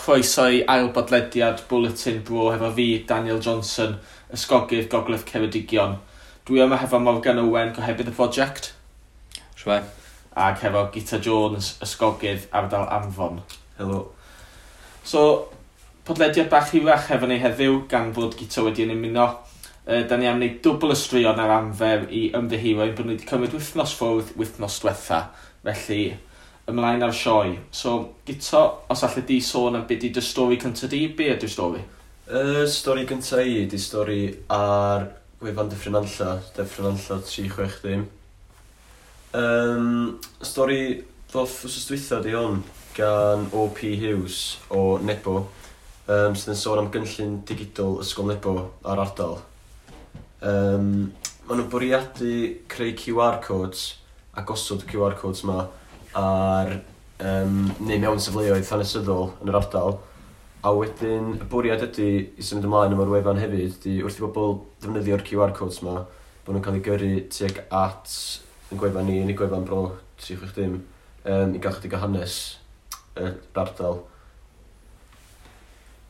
chroeso i ail bodlediad Bwletin Bro hefo fi, Daniel Johnson, ysgogydd Gogledd Ceredigion. Dwi yma hefo Morgan Owen, gohebydd y prosiect. Shwmae. Ac hefo Gita Jones, ysgogydd ardal Arfon. Helo. So, podlediad bach hirach hefo ni heddiw, gan fod Gita wedi yn ymuno. Da ni am wneud dwbl y straeon ar amfer i ymddiheuro ein bod ni wedi cymryd wythnos ffwrdd wythnos diwetha. Felly, ymlaen ar sioe. So, Gito, os allai di sôn am beth di dy stori cyntaf di, be ydy'r stori? Y stori gyntaf i ydy stori ar gwefan Dyffryn Nantlle, Dyffryn Nantlle 360. Stori ddoth wsos dwytha di hwn gan O.P. Hughes o Nebo, sydd yn sôn am gynllun digidol Ysgol Nebo a'r ardal. Maen nhw'n bwriadu creu QR codes a gosod y QR codes ma ar neu mewn safleoedd hanesyddol yn yr ardal. A wedyn y bwriad ydy i symud ymlaen efo'r wefan hefyd ydy wrth i bobl ddefnyddio'r QR codes ma, bod nhw'n cael eu gyrru tuag at yn gwefan ni, yn y gwefan Bro 360, i gael chydig o hanes yr ardal.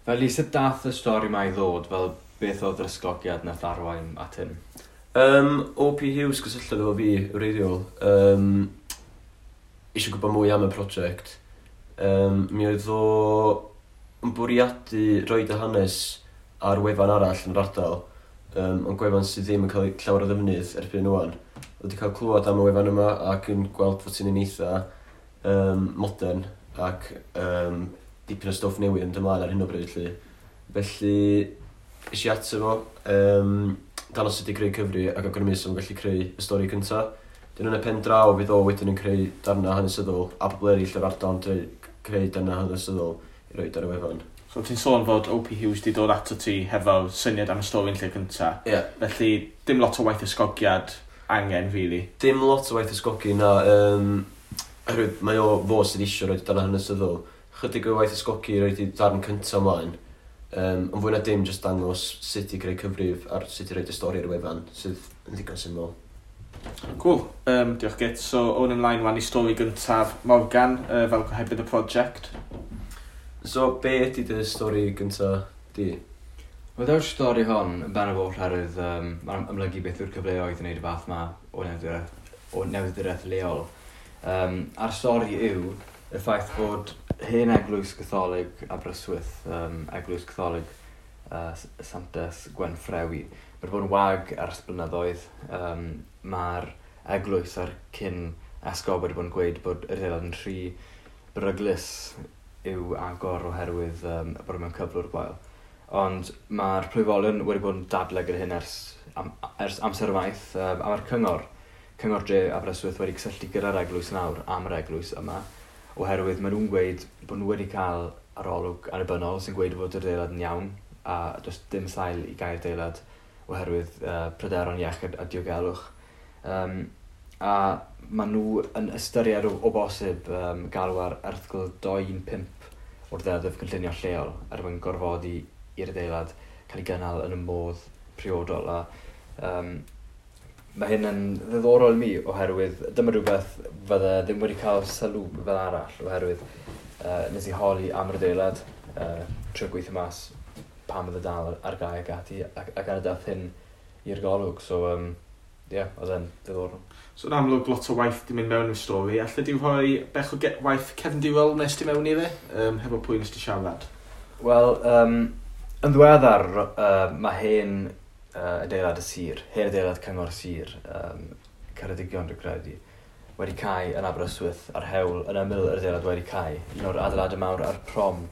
Felly, sut dath y stori ma i ddod, fel beth oedd yr ysgogiad nath arwain at hyn? O.P. Hughes gysylltodd efo fi wreiddiol. Eisiau gwybod mwy am y prosiect. Mi oedd o yn bwriadu roid y hanes ar wefan arall yn yr ardal, ond gwefan sydd ddim yn cael llawer o ddefnydd erbyn ŵan. Oedd wedi cael clywed am y wefan yma ac yn gweld fod ti'n un eitha modern ac dipyn o stwff newydd yn ymlaen ar hyn o bryd. Lly. Felly, es i ato fo, dangos sut i creu cyfri ac awgrymu sut o'n gallu creu y stori cyntaf. Dyn yn y pen draw fydd o wedyn yn creu darnau hanesyddol a pobl eraill o'r ardal yn creu darnau hanesyddol i roed ar y wefan. So ti'n sôn fod O.P. Hughes di dod ato ti hefo syniad am y stori yn lle cynta. Ie. Yeah. Felly dim lot o waith ysgogiad angen, really. Dim lot o waith ysgogi na. Oherwydd mae o fo sydd eisiau roed darnau hanesyddol. Chydig o waith ysgogi i roed i darn cyntaf ymlaen. Ond fwy na dim jyst dangos sut i greu cyfrif ar sut i roed y stori ar y wefan, sydd yn ddigon syml. Cool. Diolch Git. So, o'n ymlaen wan i stori gyntaf Morgan, fel gohebydd y prosiect. So, be ydy dy stori gyntaf di? Wel, daw'r stori hon yn bennaf oll oherwydd mae'n amlygu beth yw'r cyfleoedd i wneud y fath ma o newyddiaduraeth leol. A'r stori yw y ffaith bod hen eglwys Gatholig Aberystwyth, eglwys Gatholig Santes Gwenffrewi, mae wedi bod yn wag ers blynyddoedd. Mae'r eglwys a'r cyn esgob wedi bod yn gweud bod yr adeilad yn rhy beryglus i'w agor oherwydd bod e mewn cyflwr gwael. Ond mae'r plwyfolion wedi bod yn dadlau gyda hyn ers amser maith, a mae'r cyngor dre Aberystwyth wedi cysylltu gyda'r eglwys nawr am yr eglwys yma, oherwydd maen nhw'n gweud bod nhw wedi cael arolwg annibynnol sy'n gweud fod yr adeilad yn iawn a does dim sail i gau'r adeilad oherwydd pryderon iechyd a diogelwch. A maen nhw yn ystyried o bosib galw ar erthygl 215 o'r ddeddf cynllunio lleol er mwyn gorfodi i'r adeilad cael ei gynnal yn y modd priodol. A mae hyn yn ddiddorol i mi oherwydd dyma rhywbeth fydde ddim wedi cael sylw fel arall oherwydd nes i holi am yr adeilad, trio gweithio mas pam oedd y dal ar gau ac ati ac ar y dath hyn i'r golwg. So, ie, oedd e'n ddiddorol. So, yn amlwg lot o waith di mynd mewn i'r stori. Alle di rhoi bech o waith cefndirol nes ti mewn i fe? Hefo pwy nes ti siarad? Wel, yn ddiweddar, mae hen adeilad y sir, hen adeilad cyngor sir, Ceredigion dwi'n credu, wedi cau yn Aberystwyth ar hewl yn ymyl yr adeilad wedi cau, un o'r adeiladau mawr ar prom.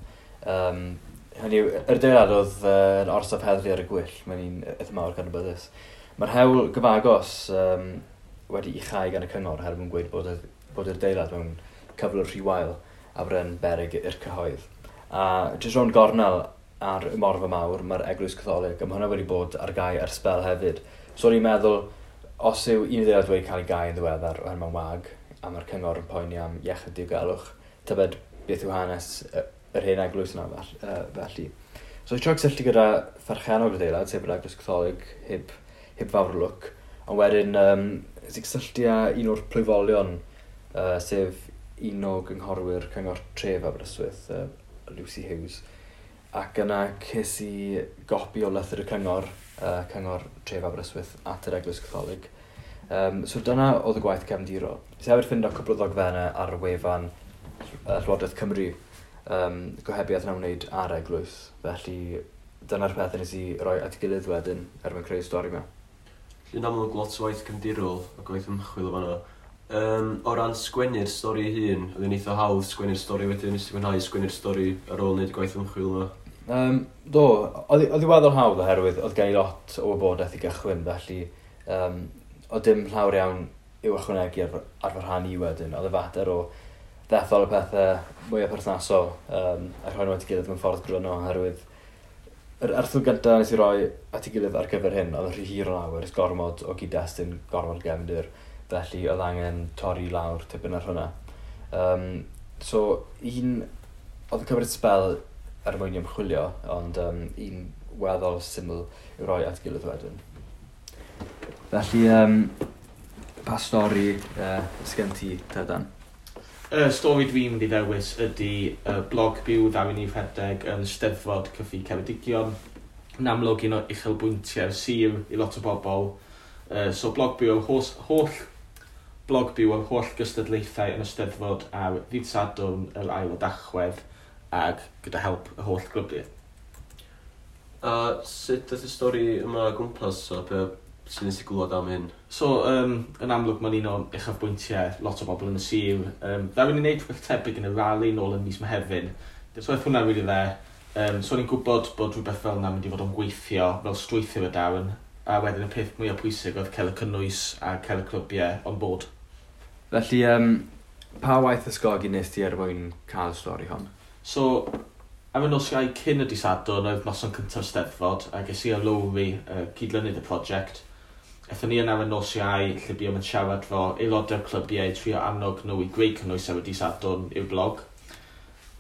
Hynny yw, yr adeilad oedd yn orsaf heddlu ar y gwyll, mae'n un eitha mawr gan y byddus. Mae'r hewl gyfagos wedi ei chau gan y cyngor oherwydd yn gweud bod yr adeilad mewn cyflwr rhy wael a bod e'n beryg i'r cyhoedd. A jyst rownd gornel ar y Morfa Mawr, mae'r Eglwys Catholig, a mae hwnna wedi bod ar gau ers sbel hefyd. So o'n i'n meddwl, os yw un adeilad wedi cael ei gau yn ddiweddar oherwydd mae'n wag, a mae'r cyngor yn poeni am iechyd diogelwch, tybed beth yw hanes yr hen eglwys yna felly. So i trio cysylltu gyda pherchennog yr adeilad, sef yr Eglwys Catholig, heb fawr o lwc, ond wedyn nes i cysylltu â un o'r plwyfolion, sef un o gynghorwyr cyngor tref Aberystwyth, Lucy Hughes. Ac yna ces i gopi o lythyr y cyngor, cyngor Tref Aberystwyth at yr Eglwys Catholig. So dyna oedd y gwaith cefndirol. Nes i hefyd ffindo cwpl o ddogfennau ar wefan Llywodraeth Cymru, gohebiaeth yn ymwneud â'r eglwys. Felly dyna'r pethau nes i roi at ei gilydd wedyn er mwyn creu stori yma. Yn amlwg lot o waith cefndirol a gwaith ymchwil o fanna. O ran sgwennu'r stori ei hun, oedd hi'n eitha hawdd sgwennu'r stori wedyn, nes ti fwynhau sgwennu'r stori ar ôl wneud y gwaith ymchwil yma? Do, oedd hi weddol hawdd oherwydd oedd gen i lot o wybodaeth i gychwyn, felly oedd dim llawer iawn i'w ychwanegu ar fy rhan i wedyn. Oedd y fater o ddethol y pethau mwyaf perthnasol a rhoi nhw at ei gilydd mewn ffordd gryno, oherwydd yr erthygl gyntaf nes i roi at ei gilydd ar gyfer hyn, oedd yn rhy hir o lawer, ys gormod o gyd-destun, gormod gefndir, felly oedd angen torri lawr tipyn ar hwnna. So, un, oedd yn cymryd sbel er mwyn i ymchwilio, ond un weddol syml i'w roi at gilydd wedyn. Felly, pa stori sgen ti, Tedan? Y stori dwi'n mynd i ddewis ydy blog byw ddaru ni rhedeg yn Steddfod Cyffi Ceredigion. Yn amlwg un o uchelbwyntiau'r sir i lot o bobl. So blog byw o'r holl blog byw o'r holl gystadlaethau yn y Steddfod ar ddydd Sadwrn yr ail o Dachwedd ag gyda help y holl glybiau. A sut daeth y stori yma o gwmpas a be sy'n nes i glywed am hyn? So, yn amlwg mae'n un o uchafbwyntiau lot o bobl yn y sir. Ddaru ni wneud rhywbeth tebyg yn y rali nôl yn mis Mehefin. So oedd hwnna really dde. So o'n i'n gwybod bod rhywbeth fel yna mynd i fod yn gweithio fel strwythur y darn. A wedyn y peth mwyaf pwysig oedd cael y cynnwys a cael y clybiau on board. Felly, pa waith ysgogi nes ti er mwyn cael y stori hon? So, ar y nos Iau cyn y dydd Sadwrn oedd noson cyntaf Steddfod, a ges i a Lowri, cydlynydd y prosiect. Aethon ni yna ar y nos Iau, lle buom yn siarad fo aelodau'r clybiau i trio annog nhw i greu cynnwys ar y dydd Sadwrn i'w blog.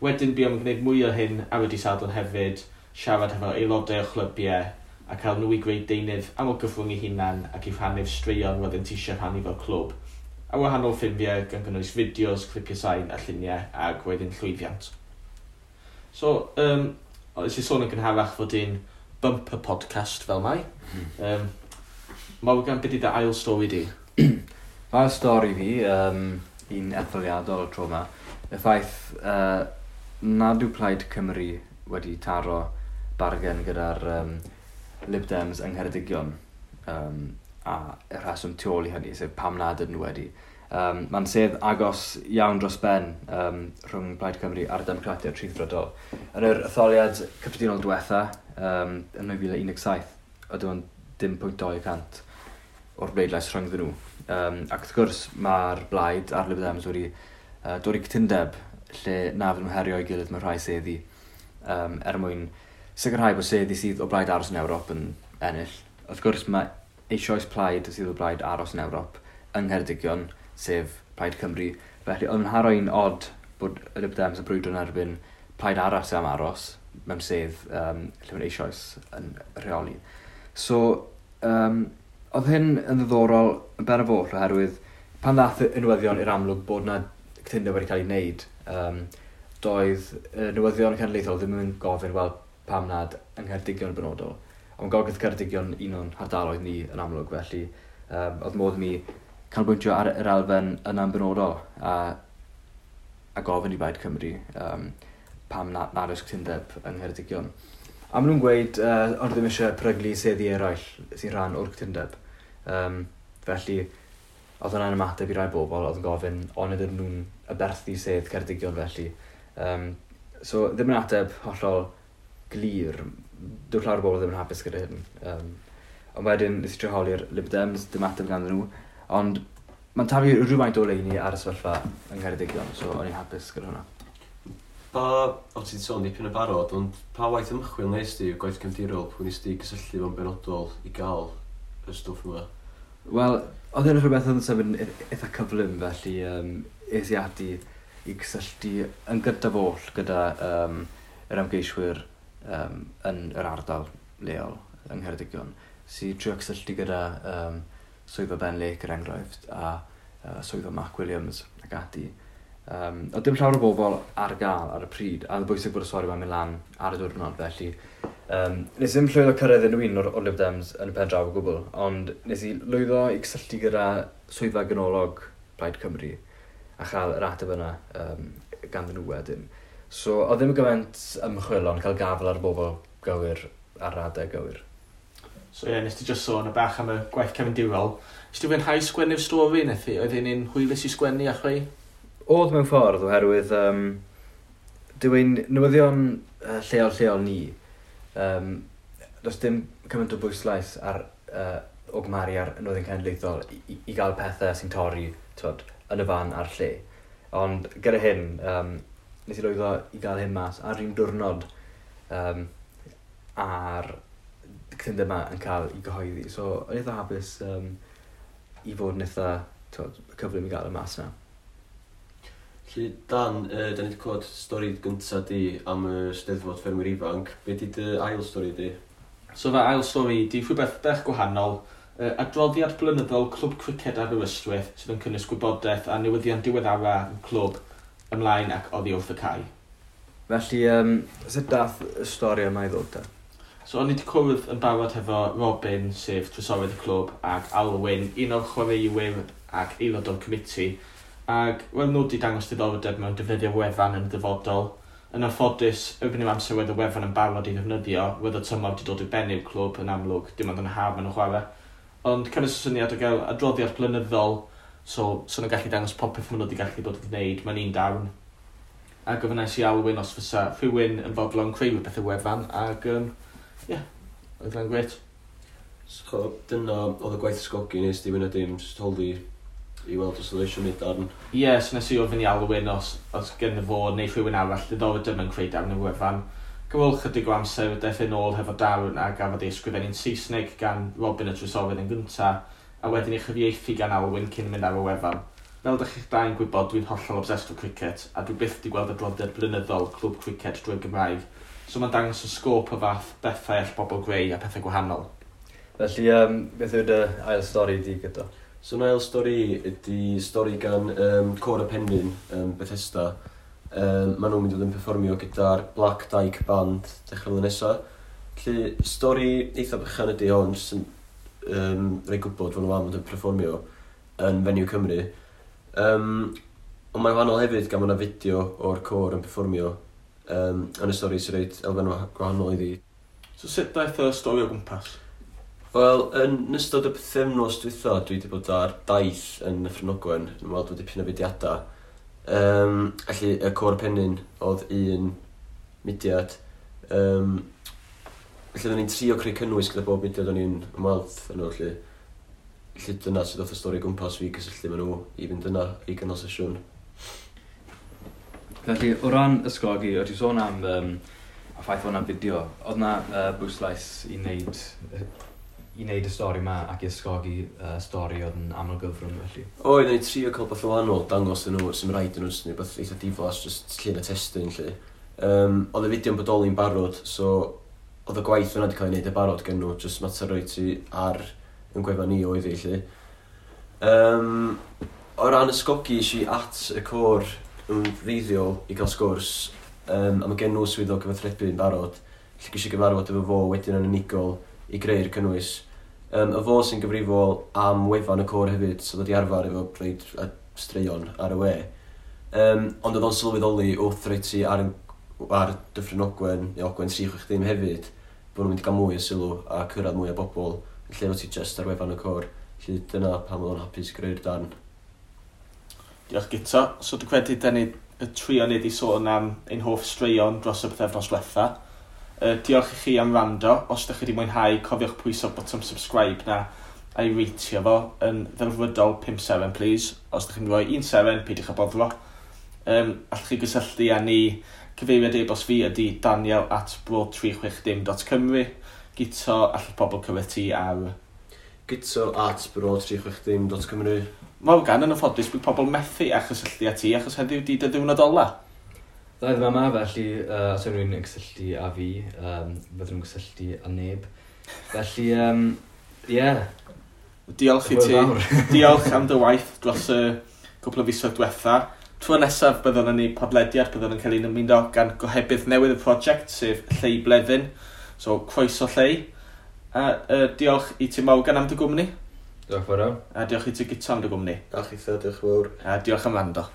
Wedyn buom yn gwneud mwy o hyn ar y dydd Sadwrn hefyd, siarad efo aelodau o chlybiau a cael nhw i greu deunydd am o gyfrwng eu hunan ac i rhannu'r straeon roeddent eisiau rhannu fel clwb. A wahanol ffurfiau gan gynnwys fideos, clipiau sain a lluniau, ac roedd yn llwyddiant. So, nes i sôn yn gynharach fod un bumper podcast fel mai. Morgan, beth ydy dy ail stori di? Ail stori fi, un etholiadol tro yma, y ffaith nad yw Plaid Cymru wedi taro bargen gyda'r Lib Dems yng Ngheredigion, a y rheswm tu ôl i hynny, sef pam nad ydyn nhw wedi. Mae'n sedd agos iawn dros ben rhwng Plaid Cymru a'r Democratiaid Rhyddfrydol. Yn yr etholiad cyffredinol diwetha, yn 2017, oedd dim ond 0.2% o'r bleidlais rhyngddyn nhw. Ac wrth gwrs, mae'r blaid a'r Lib Dems wedi dod i cytundeb lle na fydden nhw herio ei gilydd mewn rhai seddi, er mwyn sicrhau bod seddi sydd o blaid aros yn Ewrop yn ennill. Wrth gwrs, mae eisoes plaid sydd o blaid aros yn Ewrop yng Ngheredigion, sef Plaid Cymru. Felly, oedd yn haro'n od bod y Lib Dems yn brwydro yn erbyn plaid arall sydd am aros mewn sedd lle mae'n eisoes yn rheoli. So, oedd hyn yn ddiddorol yn ben y foll oherwydd pan ddath y newyddion i'r amlwg bod na cytundeb wedi cael ei wneud, doedd y newyddion cenedlaethol ddim yn gofyn, wel, pam nad yng Ngheredigion yn benodol. Ond Gogledd Ceredigion un o'n hardaloedd ni yn amlwg, felly oedd modd mi canolbwyntio ar yr elfen yna'n benodol a gofyn i Blaid Cymru pam nad oes cytundeb yng Ngheredigion. A maen nhw'n gweud ond ddim eisiau peryglu seddi eraill sy'n rhan o'r cytundeb. Felly, oedd hwnna'n ymateb i rai bobl oedd yn gofyn ond ydyn nhw'n aberthu sedd Ceredigion felly. So, ddim yn ateb hollol glir. Dyw llawer o bobl ddim yn hapus gyda hyn. Ond wedyn, nes i trio holi'r Lib Dems, dim ateb ganddyn nhw. Ond mae'n taflu rhywfaint o oleuni ar y sefyllfa yng Ngheredigion, so o'n i'n hapus gyda hwnna. Pa, o ti'n sôn dipyn o barod, ond pa waith ymchwil nes di, gwaith cefndirol, pwy nes di gysylltu fo'n benodol i gael y stwff yma? Wel, oedd hyn yn rhywbeth oedd yn symud yn eitha cyflym, felly es i ati i gysylltu yn gyntaf oll gyda yr ymgeiswyr yn yr ardal leol yng Ngheredigion. Sy'n trio cysylltu gyda swyddfa Ben Lake, er enghraifft, a swyddfa Mark Williams ac ati. Oedd dim llawer o bobl ar gael ar y pryd, a oedd bwysig bod y stori yma'n mynd lan ar y diwrnod, felly nes i ddim llwyddo cyrraedd unrhyw un o'r Lib Dems yn y pen draw o gwbl, ond nes i lwyddo i gysylltu gyda swyddfa ganolog Plaid Cymru a chael yr ateb yna ganddyn nhw wedyn. So, oedd ddim gymaint ymchwil, ond cael gafel ar y bobl gywir ar adeg gywir. So ie, yeah, nes ti just sôn y bach am y gwaith cefndirol. Nes ti fwynhau sgwennu'r stori, Nethu? Oedd hi'n un hwylus i sgwennu a chreu? Oedd mewn ffordd, oherwydd dyw ein newyddion lleol ni, does dim cymaint o bwyslais ar, o gymharu ar newyddion cenedlaethol i gael pethau sy'n torri, t'wod, yn y fan a'r lle. Ond gyda hyn, nes i lwyddo i gael hyn mas ar un diwrnod a'r cytundeb yma yn cael ei gyhoeddi. So, o'n i eitha hapus i fod yn eitha, t'wod, cyflym i gael y mas yna. Felly, Dan, da ni wedi clywed stori gyntaf di am y Steddfod Ffermwyr Ifanc. Be di dy ail stori di? So fy ail stori di rhywbeth bach gwahanol. Adroddiad blynyddol Clwb Criced Aberystwyth sydd yn cynnwys gwybodaeth a newyddion diweddara y clwb ymlaen ac oddi wrth y cae. Felly, sut dath y stori yma i ddod te? So o'n i wedi cwrdd yn barod hefo Robin, sef trysorydd y clwb, ac Alwyn, un o'r chwaraewyr ac aelod o'r committee. Ac wel, nhw wedi dangos diddordeb mewn defnyddio wefan yn y dyfodol. Yn anffodus, erbyn i'r amser wedd y wefan yn barod i ddefnyddio, wedd y tymor wedi dod i ben i'r clwb yn amlwg, dim ond yn haf maen nhw'n chwarae. Ond cefais y syniad o gael adroddiad blynyddol, so nhw'n gallu dangos popeth maen nhw wedi gallu bod yn gwneud mewn un darn. A gofynnais i Alwyn os fysa rhywun yn fodlon creu rhywbeth y wefan, ac ie, oedd hwnna'n grêt. So, dyna oedd y gwaith ysgogi nes di fwy na dim, jyst holi i weld os oedd eisiau gwneud darn. Ie, yeah, so nes i ofyn i Alwyn os gen fo neu rhywun arall diddordeb mewn creu darn y wefan. Gyfol chydig o amser, daeth yn ôl hefo darn a gafodd ei ysgrifennu'n Saesneg gan Robin y Trysorydd yn gynta, a wedyn ei chyfieithu gan Alwyn cyn mynd ar y wefan. Fel dych chi'ch dau'n gwybod, dwi'n hollol obsessed o cricket, a dwi byth wedi gweld adroddiad blynyddol Clwb Criced drwy'r Gymraeg, so mae'n dangos y sgôp o fath bethau all bobl greu a pethau gwahanol. Felly, beth yw dy ail stori di gyda? So, yn ail stori ydy stori gan Côr y Penrhyn, Bethesda. Maen nhw'n mynd i fod yn perfformio gyda'r Black Dyke Band dechrau flwyddyn nesaf. Felly, stori eitha bychan ydy hon, jyst yn rhoi gwybod fod nhw am fod yn perfformio yn Venue Cymru. Ond mae'n wahanol hefyd gan bod yna fideo o'r côr yn perfformio yn y stori sy'n rhaid elfen gwahanol iddi. So sut daeth y stori o gwmpas? Wel, yn ystod y pythefnos dwytha, dwi wedi bod ar daith yn Nyffryn Ogwen, yn weld bod dipyn o fudiadau. Felly, y Côr Penrhyn oedd un mudiad. Felly, oedden ni'n trio creu cynnwys gyda bob mudiad o'n i'n ymweld yn nhw, felly. Felly, dyna sydd oedd y stori gwmpas fi gysylltu efo nhw i fynd yna i gynnal sesiwn. Felly, o ran ysgogi, o't ti'n sôn am y ffaith fod yna fideo, oedd yna bwyslais i wneud y stori yma ac i ysgogi stori oedd yn aml gyfrwng felly? Oedd, o'n i'n trio cael beth o wahanol, dangos yn nhw, sy'n rhaid yn nhw, sy'n rhywbeth eitha diflas, just llun a testun, lle. Oedd y fideo'n bodoli'n barod, so oedd y gwaith yna wedi cael ei wneud y barod gen nhw, just mater roi ti ar yn gwefan ni oedd hi, lle. O ran ysgogi, es i at y côr yn wreiddiol i gael sgwrs, a mae gen nhw swyddog gyfathrebu yn barod, lle ges i gyfarfod efo fo wedyn yn unigol i greu'r cynnwys. Y fo sy'n gyfrifol am wefan y côr hefyd, so ddod i arfer efo rhaid a straeon ar y we. Ond oedd o'n sylweddoli wrth roi ti ar Dyffryn Ogwen, neu Ogwen 360 hefyd, bod nhw'n mynd i gael mwy o sylw a cyrraedd mwy o bobl, yn lle fod ti just ar wefan y côr. Felly dyna pam oedd o'n hapus greu'r darn. Diolch Guto. So dwi'n credu da ni y trio ni wedi sôn am ein hoff straeon dros y pythefnos diwetha. Diolch i chi am wrando. Os ydych chi wedi mwynhau, cofiwch pwyso botwm subscribe na a'i reitio fo yn ddelfrydol 5 seren, please. Os ydych chi'n rhoi 1 seren, peidiwch â boddro. Allwch chi gysylltu â ni. Cyfeiriad e-bost fi ydy daniel@bro360.cymru. Guto, allwch pobl cyrraedd ti ar guto@bro360.cymru. Morgan, yn anffodus, bydd pobl methu â chysylltu â ti achos heddiw di dy ddiwrnod ola. Dda i ddim yma, felly os yw rhywun yn cysylltu â fi, fydden nhw'n cysylltu â neb. Felly, ie. Diolch i ti. Hwyl fawr. Diolch am dy waith dros y cwpl o fisoedd diwetha. Tro nesaf byddwn yn ei podlediad, byddwn yn cael ein ymuno gan gohebydd newydd y prosiect, sef Llei Bleddyn. So, croeso Llei. A diolch i ti Morgan am dy gwmni. Diolch fawr iawn. A diolch i ti Guto am dy gwmni. A chitha, diolch fawr. A diolch am wrando.